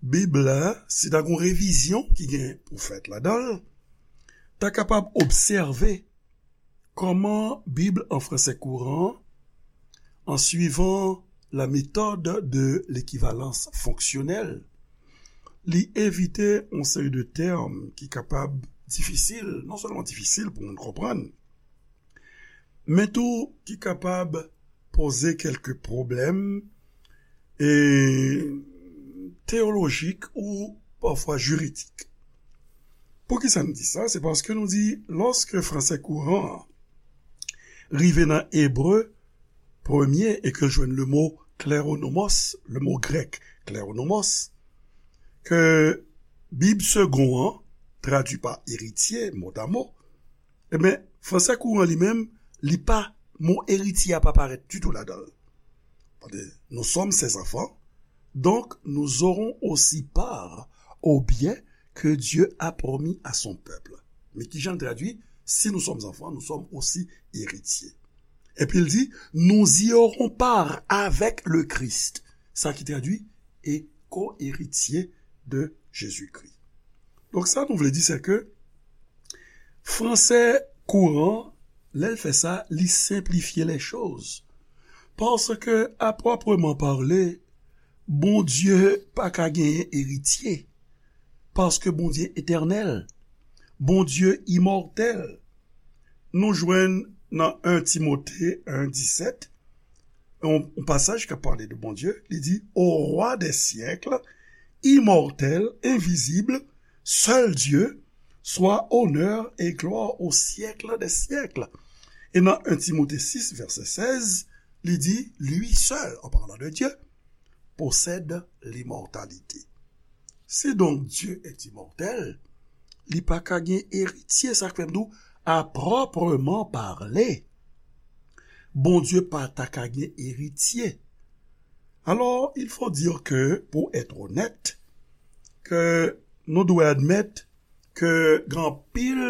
Bib la, si ta gon revizyon ki gen pou fèt ladan l, ta kapab obsève kòman Bib an fransè kouran, an suivant la méthode de l'équivalence fonctionnelle, li evite yon seri de tèm ki kapab difisil, non sèlman difisil pou moun konprann, men tou ki kapab poze kèlke pwoblèm e teyolojik ou pafwa jiridik. Poukisa n di sa? Se paske nou di, lòske fransè kouran an rive nan ebre premye e ke l jwenn le mo kleronomos, le mo grèk kleronomos, ke Bib segon an, tradui pa eritye, motamo, ebyen, fransè kouran li menm, li pa, mo eritye a pa parèt ditou ladan l. Tande, nous sommes ses enfants, donc nous aurons aussi part au bien que Dieu a promis à son peuple. Men kijan l tradui, si nous sommes enfants, nous sommes aussi héritiers. Epi l di, nous y aurons part avec le Christ. Sa ki tradui, et co-héritiers de Jésus-Christ. Donk sa nou vle di, se ke fransè kouran, lè l fè sa, li senplifye les choses. Paske, à proprement parler, Bondye pa ka genyen eritye. Paske Bondye etènèl. Bondye imòtèl. Nou jwenn nan en Timote en disèt, yon, yon pasaj k ap pale de Bondye, li di, Au roi des siècles, immortel, invisible, seul Dieu, soit honneur et gloire au siècle des siècles. E nan en Timote sis, vèsè sèz, li di, Lui seul, en parlant de Dieu, possède l'immortalité. Si donc Dieu est immortel, li pa ka gen eritye, sa k fè m di w, à proprement parler, Bondye pa ta ka gen eritye. Alors, il faut dire que, pour être honnête, ke nou dwe admèt ke gen anpil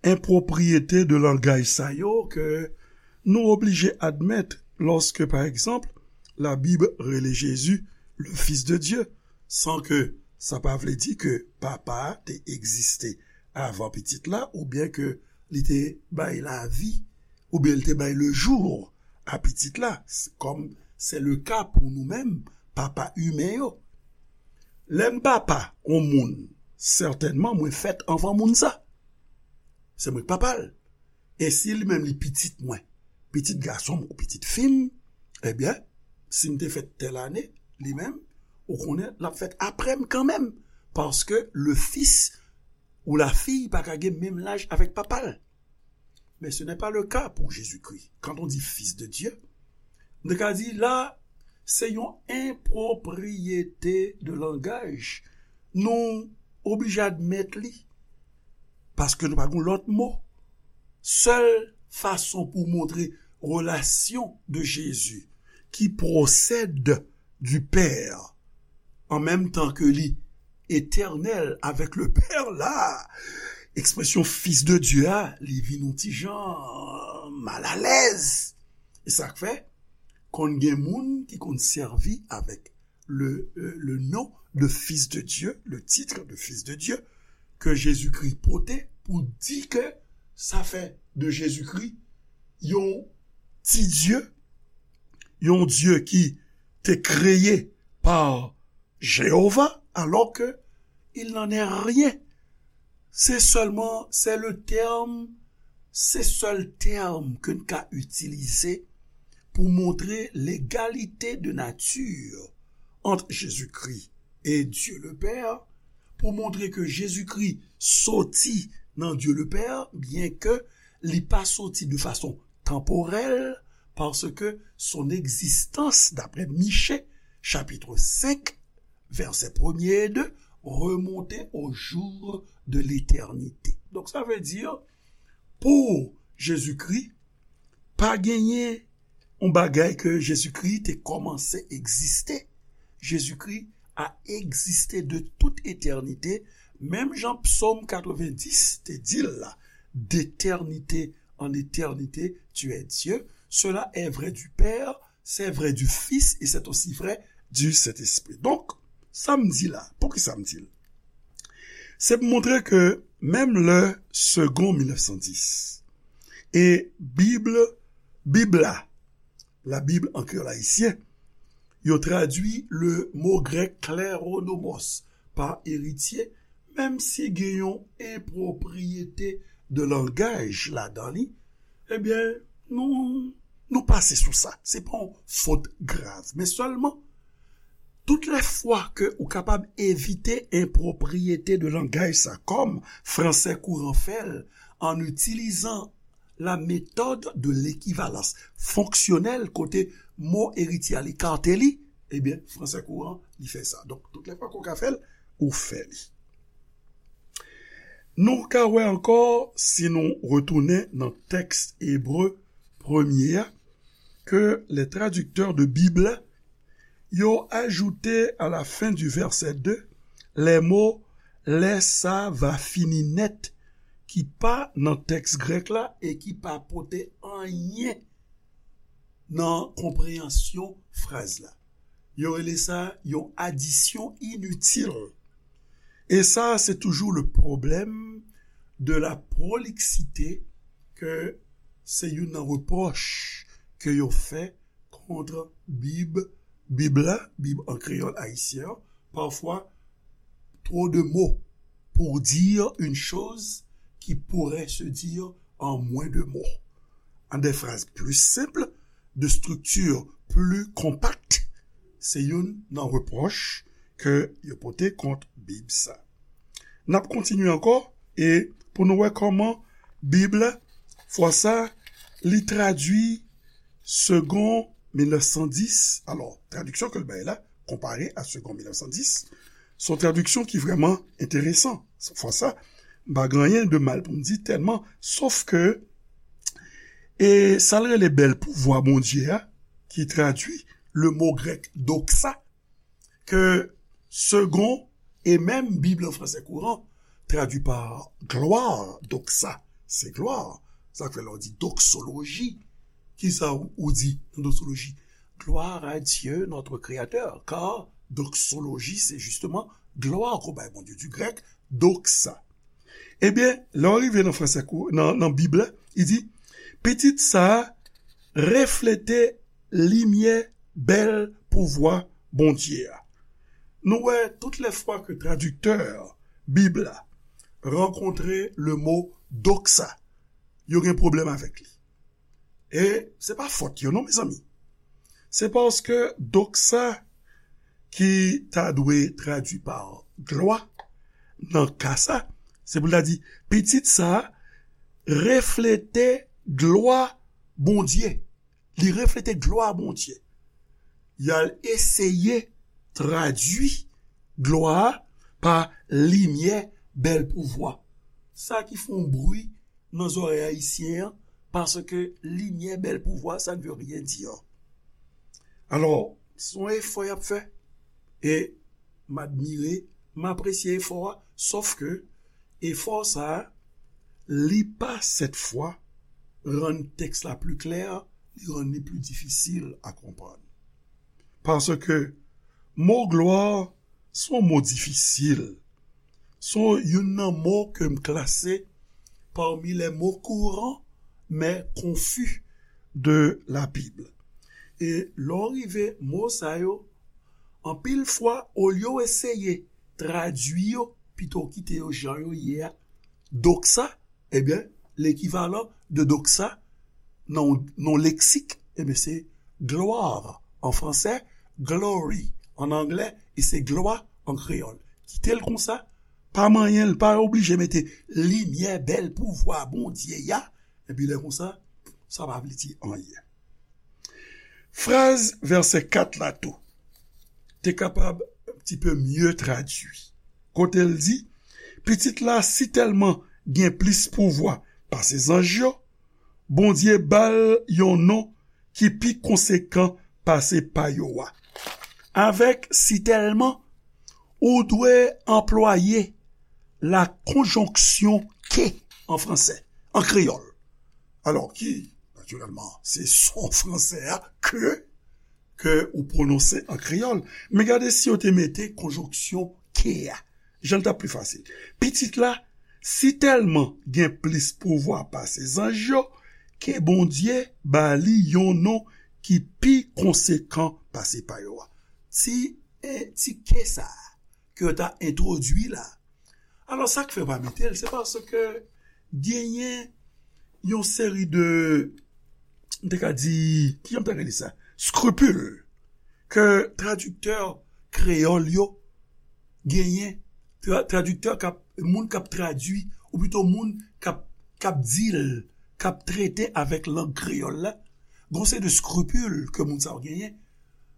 enpwopriyete de langaj sa yo ke nou oblije admèt lòske, pa egzanp, Labib rele Jezi le Fils de Dieu, san ke sa pa vle di ke Papa a te egziste avan Pitit la, oubyen ke li te bay lavi, oubyen li te bay le jour a Pitit la, kòm c'est le cas pou nou menm, papa imen yo. Lè m papa yon moun, sètènman, mwen fèt anvan moun sa. Se mwen k papa l. E si li menm li pitit mwen, pitit gason m ou pitit fi m, ebyen, si m te fèt tèl ane, li menm, ou konnen, l ap fèt apre m kanmenm. Paske le fils ou la fille pa ka gen menm laj avèk papa l. Mais ce n'est pas le cas pour Jésus-Christ. Quand on dit Fils de Dieu, nou ka di la, se yon enpwopriyete de langaj. Nou oblije admèt li. Paske nou pa gen lòt mo. Sèl fason pou montre relasyon de Jezi ki pwosèd du Père, an menm tan ke li etènèl avèk le Père la, ekspresyon Fils de Dieu a, li vin yon ti jan malalèz. E sa k fè, konn gen moun ki konn sèvi avèk le, euh, le nom de Fils de Dieu, le titre de Fils de Dieu, ke Jezikri pote pou di ke sa fè de Jezikri yon ti Dye, yon Dye ki te kreye pa Jewova, alors que il n'en est rien. Se sèlman, c'est le terme, se sèl tèm ke n ka itilize pou montre l'égalité de nature entre Jésus-Christ et Dieu le Père, pou montre ke Jezikri soti nan Dye le Pè, byen ke li pa soti de fason tanporèl, paske son egzistans, daprè Miche, chapit senk, vèsè premye e de, remonte au jour de l'éternité. Donk, sa vle di, pou Jezikri, pa genyen yon bagay ke Jezikri te kòmanse egziste. Jezikri a egziste de tout etènite, menm jan Psaume quatre-vingt-dix te di l la, d'éternité en éternité, tu es Dieu. Cela est vrai du Père, c'est vrai du Fils et c'est aussi vrai du Saint-Esprit. Donk, sa m di la, poukisa m di l? Se pou montre ke menm lè Segond mil nèf san dis e Bib, Bib la, la Bible en créole haïtien, yo tradui le mo grèk kleronomos pa eritye, menm si gen yon enpwopriyete de langaj ladan li, ebyen, nou, nou pase sou sa. Se pa yon fot grav, men sèlman, tout lè fwa ke ou kapab evite enpwopriyete de langaj sa, kòm fransè kouran fè l, an itilizan la méthode de l'équivalence fonctionnelle, kote mo eritye a li kate li, ebyen, fransè kouran, li fè sa. Donk, tout lè fwa ke w ka fè l, ou fè li. Nou ka wè ankò, si nou retounen nan tèks ebre premye a, ke les traducteurs de Bible, yo ajoute à la fin du verset deux les mots lè sa va fini nèt, ki pa nan tèks grèk la e ki pa pote anyen nan konpreyansyon fraz la. Yo rele sa yon adisyon initil. E sa, se toujou le problème de la prolixité, ke se youn nan repwòch ke yo fè kont Bib, Bib la, Bib an kreyòl ayisyen an, parfois trop de mots pour dire une chose qui pourrait se dire en moins de mots. En des phrases plus simples, de structure plus compacte, se youn nan repwòch ke yo pote kont Bib sa. N ap kontinye ankò e pou nou wè kòman Bib la, fwa sa, li tradui Segond mil nèf san dis. Alò, tradiksyon ke l bay la, konpare a Segond mil nèf san dis, se yon tradiksyon ki vrèman enteresan. Fwa sa, m pa gen anyen de mal pou m di tèlman, sof ke, e sa l rele bèl pouvwa Bondye a, ki tradui le mo grèk doxa, ke Segond e menm Bib an fransè kouran tradui pa glwa, doxa, se glwa. Sa k fè lè w di doxologie, kisa ou, ou di nan doxologie? Gloire à Dieu, notre Créateur, car doxologie, c'est justement gloire qu'on bay Bondye, du grec doxa. Ebyen, lè w rive nan fransè kou, nan, nan Bib la, li di, pitit sa a reflete limyè bèl pouvwa Bondye a. Nou wè, tout lè fwa ke tradiktè Bib la rankontre le mo doxa, yo gen pwoblèm avèk li. E se pa fòt yo non, mezanmi. Se paske doxa ki ta dwe tradui pa glwa, nan ka sa, se pou l ta di, pitit sa a reflete glwa Bondye. Li reflete glwa Bondye. Y al eseye tradui glwa a pa limyè bèl pouvwa. Sa ki fè yon bri nan zòrèy ayisyen an, paske limyè bèl pouvwa, ça ne veut rien dire. Alò, se yon efò y ap fè. E m admire, m apresye efò a, sòf ke efò sa a, li pa sèt fwa rann tèks la pli klè, li rann li pli difisil a konprann. Paske mo glwa se yon mo difisil. Se youn nan mo ke m klase parmi les mots courants mais confus de la Bible. E lè w rive mo sa yo, anpil fwa, olye w eseye tradui yo, pito w kite yo jan yo ye a, doxa, ebyen, lekivalan de doxa nan, nan leksik, ebyen, se gloire an fransè, glory an anglè, e se glwa an kreyòl. Kite l konsa, pa manyen l, pa oblije mete limyè bèl pouvwa Bondye a, epi lè konsa, sa pa vle di anyen. Fraz vèsè kat la tou te kapab un petit peu mieux tradui. Kote l di, pitit la sitèlman gen plis pouvwa pase zanj yo, Bondye ba l yon non ki pi konsekan pase pa yo a. Avèk sitèlman, ou dwe anplwaye la konjonksyon ke an fransè. an kreyòl. Alò ki, natirèlman, se son fransè a ke, ke ou pwononse an kreyòl. Men gade si yo te mete konjonksyon ke a. Jan l t ap pi fasil. Pitit la, si tèlman gen plis pouvwa pase zanj yo, ke Bondye ba li yon non ki pi konsekan pase pa yo a. Ti, eh, ti ke sa a ke yo ta entwodui la. Alò, sa k fè yo pa mete l, se paske genyen yon seri de, m te ka di, kijan m ta rele sa? Scrupule ke tradiktè kreyòl yo genyen, tra-, tradiktè k ap, moun k ap tradui, ou pito moun k ap, k ap di l, k ap trete avèk lang kreyòl la, gon seri de scrupule ke moun sa yo genyen,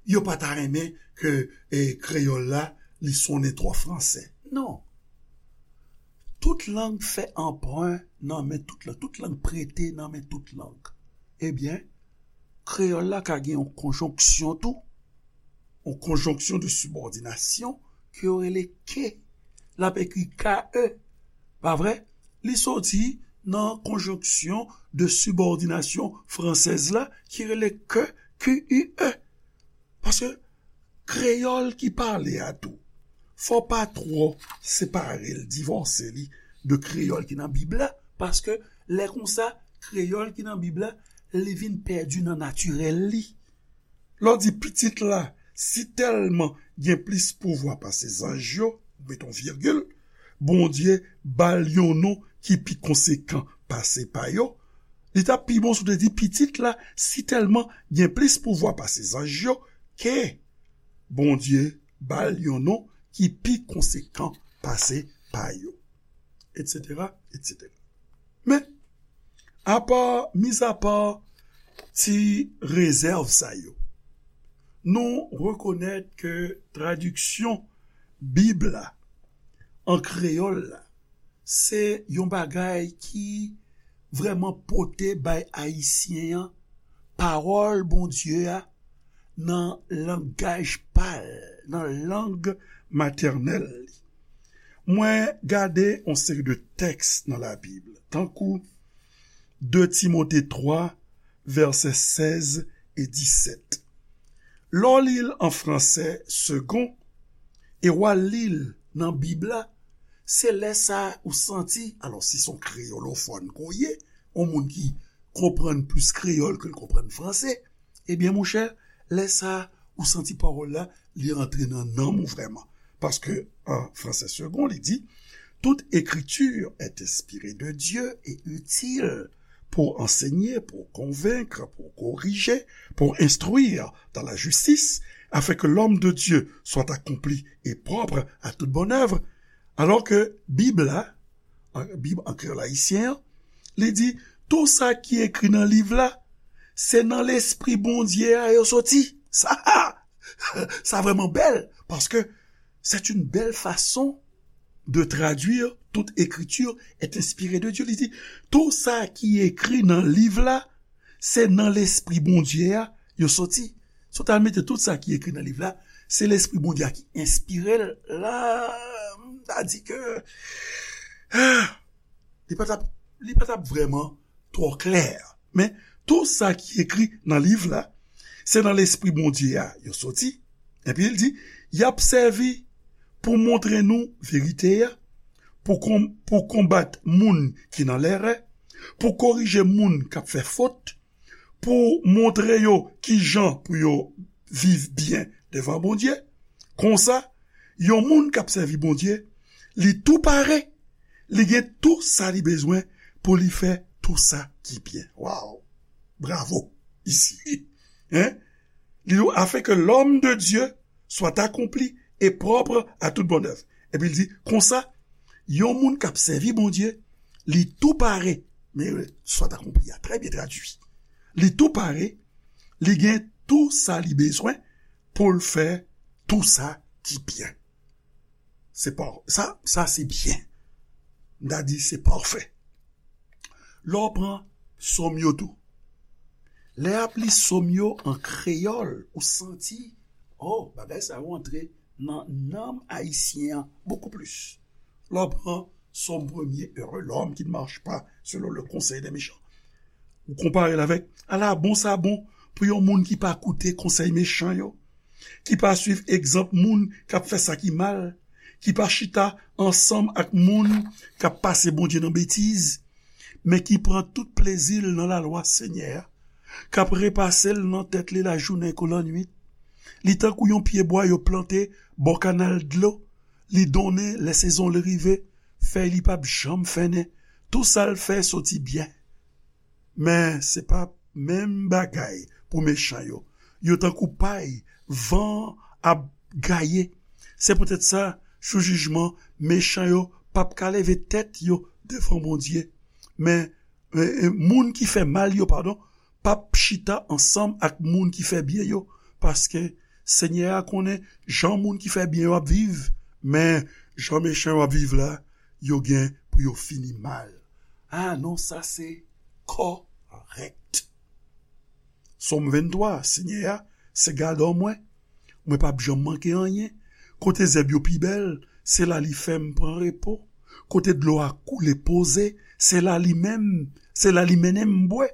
yo pa ta renmen ke, eh, kreyòl la, li sonnen twò fransè. Non. Tout lang fè anpren nan men tout lang. Tout lang prete nan men tout lang. Ebyen, kreyòl la ka gen yon konjonksyon tou. Yon konjonksyon de sibòdinasyon ke yo rele ke. L ap ekri K E. Pa vre? Li soti nan konjonksyon de sibòdinasyon fransèz la ki rele ke, Q U E. Paske kreyòl ki pale a tou, fò pa twò separe l, divòse li de kreyòl ki nan Bib la, paske lè konsa, kreyòl ki nan Bib la, li vin pèdi nan natirèl li. Lè w di pitit la, si tèlman gen plis pouvwa pase zanj yo, ou met yon virgil, Bondye ba l yon non ki pi konsekan pase pa yo, li t ap pi bon si w te di pitit la, si tèlman gen plis pouvwa pase zanj yo, ke Bondye ba l yon non ki pi konsekan pase pa yo, etsetera, etsetera. Men, apa, mizapa ti rezèv sa yo, nou rekonèt ke tradiksyon Bib la an kreyòl la, se yon bagay ki vrèman pote bay Ayisyen an pawòl Bondye a nan langaj pa l, nan lang matènèl li. Mwen gade yon seri de tèks nan Labib, tankou de Timote twa, vèsè sèz e disèt. Lè w li l an fransè segon, e w al li l nan Bib la, se lè sa a ou santi, alò, si se yon kreyolofòn ke w ye, yon moun ki konprann plis kreyòl ke l konprann fransè, ebyen, monchè, lè sa a, ou santi pawòl la, li antre nan nanm ou vrèman. Paske, an fransè segon, li di, Toute écriture est inspirée de Dieu et utile pour enseigner, pour convaincre, pour corriger, pour instruire dans la justice, afin que l'homme de Dieu soit accompli et propre à toute bonne œuvre. Alò ke Bib la, an, Bib an kreyòl ayisyen an, li di, tou sa ki ekri nan liv la, se nan Lespri Bondye a yo soti. Sa, sa vrèman bèl, paske c'est une belle façon de traduire toute écriture est inspirée de Dieu. Li di, tou sa ki ekri nan liv la, se nan Lespri Bondye a yo soti. Si w ta mete tout sa ki ekri nan liv la, se Lespri Bondye a ki enspire l la, m ta di ke, ah, li pa t ap, li pa t ap vrèman twò klè. Men, tou sa ki ekri nan liv la, se nan Lespri Bondye a yo soti. Epi l di, y ap sèvi pou montre nou verite a, pou kon-, pou konbat moun ki nan lèrè, pou korije moun k ap fè fot, pou montre yo ki jan pou yo viv byen devan Bondye. Konsa, yon moun k ap sèvi Bondye, li tou pare, li gen tou sa li bezwen pou li fè tou sa ki byen. Waw! Bravo! Isi. Hein? Li di, afin que l'homme de Dieu soit accompli et propre à toute bonne œuvre. Epi l di, konsa, yon moun k ap sèvi Bondye, li tou pare. Men, soit accompli a, trè byen tradui. Li tou pare, li gen tou sa li bezwen pou l fè tou sa ki byen. Se pa, sa, sa se byen. M ta di se pafè. Lè w pran sòm yo tou. Lè y ap li sòm yo an kreyòl, ou santi, oh, bagay sa yo antre nan nanm ayisyen an bokou plis. Lè w pran Sòm premye, heureux l'homme qui ne marche pas selon le conseil des méchants. Ou konpare l avèk, ala bon sa bon pou yon moun ki pa koute konsèy mechan yo, ki pa swiv egzanp moun k ap fè sa ki mal, ki pa chita ansanm ak moun k ap pase Bondye nan betiz, men ki pran tout plezi l nan lalwa Senyè a, k ap repase l nan tèt li lajounen kou lannwit. Li tankou yon pyebwa yo plante bò kanal dlo, li donnen lè sezon li rive, fèy li p ap janm fennen, tou sa l fè soti byen. Men se pa menm bagay pou mechan yo. Yo tankou pay van ap gaye. Se poutèt sa, jou jijman, mechan yo p ap ka leve tèt yo devan Bondye. Men, e, e, moun ki fè mal yo, padon, p ap chita ansanm ak moun ki fè byen yo, paske Senyè a konnen jan moun ki fè byen yo ap viv, men jan mechan yo ap viv la, yo gen pou yo fini mal. A non, sa se kòrèk. Sòm venntwa, Senyè a se gadò mwen, mwen p ap janm manke anyen. Kote zèb yo pi bèl, se la li fè m pran repo. Kote dlo a koule poze, se la li menm, se la li mennen m bwè.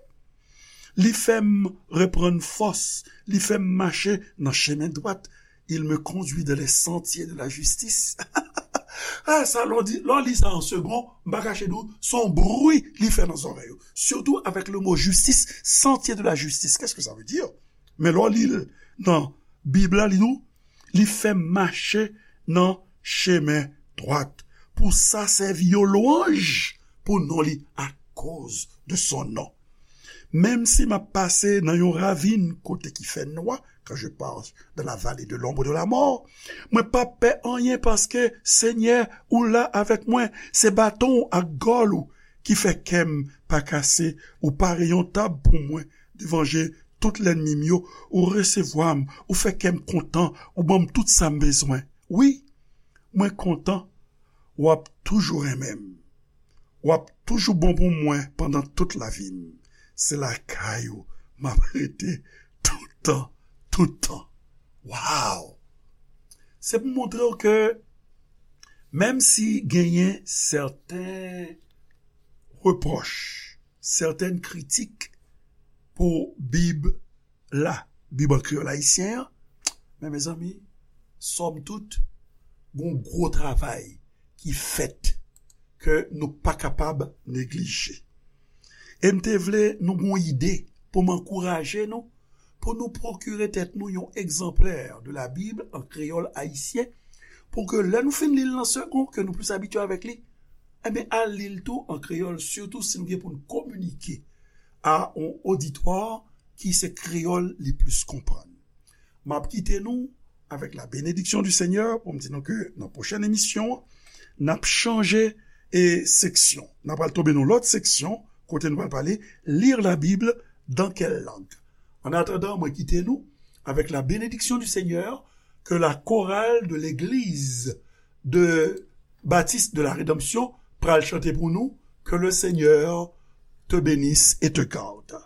Li fè m reprann fòs, li fè m mache nan chemen dwat. Il me conduit dans les sentiers de la justice. A, sa, lè w di, lè w li sa an segon, m pa kache di w, se yon bri li fè nan zòrèy ou. Surtout avec le mot justice, sentier de la justice. Qu'est-ce que ça veut dire? Men lè w li l nan Bib la, li di w, li fè m mache nan chemen dwat pou sa sèvi yon lwanj pou non li, akoz de son non. Menm si m ap pase nan yon ravin kote ki fè nwa, quand je passe dans la vallée de l'ombre de la mort, mwen p ap pè anyen paske, Senyè, ou la avèk mwen. Se baton w ak gòl ou ki fè kè m pa kase. Ou pare yon tab pou mwen devan je tout lènmi m yo. Ou resevwa m, ou fè kè m kontan, ou ban m tout sa m bezwen. Wi, mwen kontan, w ap toujou renmen m. W ap toujou bon pou mwen pandan tout lavi m. Se lakay ou m ap rete toutan, toutan. Waw! Se pou montre w ke menm si genyen sèten repwòch, sèten kritik pou Bib la, Bib an kreyòl ayisyen an, men mezanmi, sòm tout, gon gwo travay ki fèt ke nou pa kapab neglije. E m te vle nou gon ide pou m ankouraje nou, pou nou pwokire tèt nou yon egzanplè de la Bible an kreyòl ayisyen, pou ke lè nou fin li l nan segon, ke nou plis abitye avèk li, enben, al li l tou an kreyòl, sitou si nou gen pou n kominike a yon oditwa ki se kreyòl li plis konprann. M ap kite nou avec la bénédiction du Seigneur, pou m di nou ke nan pwochèn emisyon an, n ap chanje e seksyon. N ap al tonbe nan lòt seksyon, kote nou pral pale, lire la Bible dans quelle langue? En attendant, mwen kite nou avec la bénédiction du Seigneur, que la chorale de l'église de Baptiste de la Rédemption pral chante pou nou, que le Seigneur te bénisse et te garde.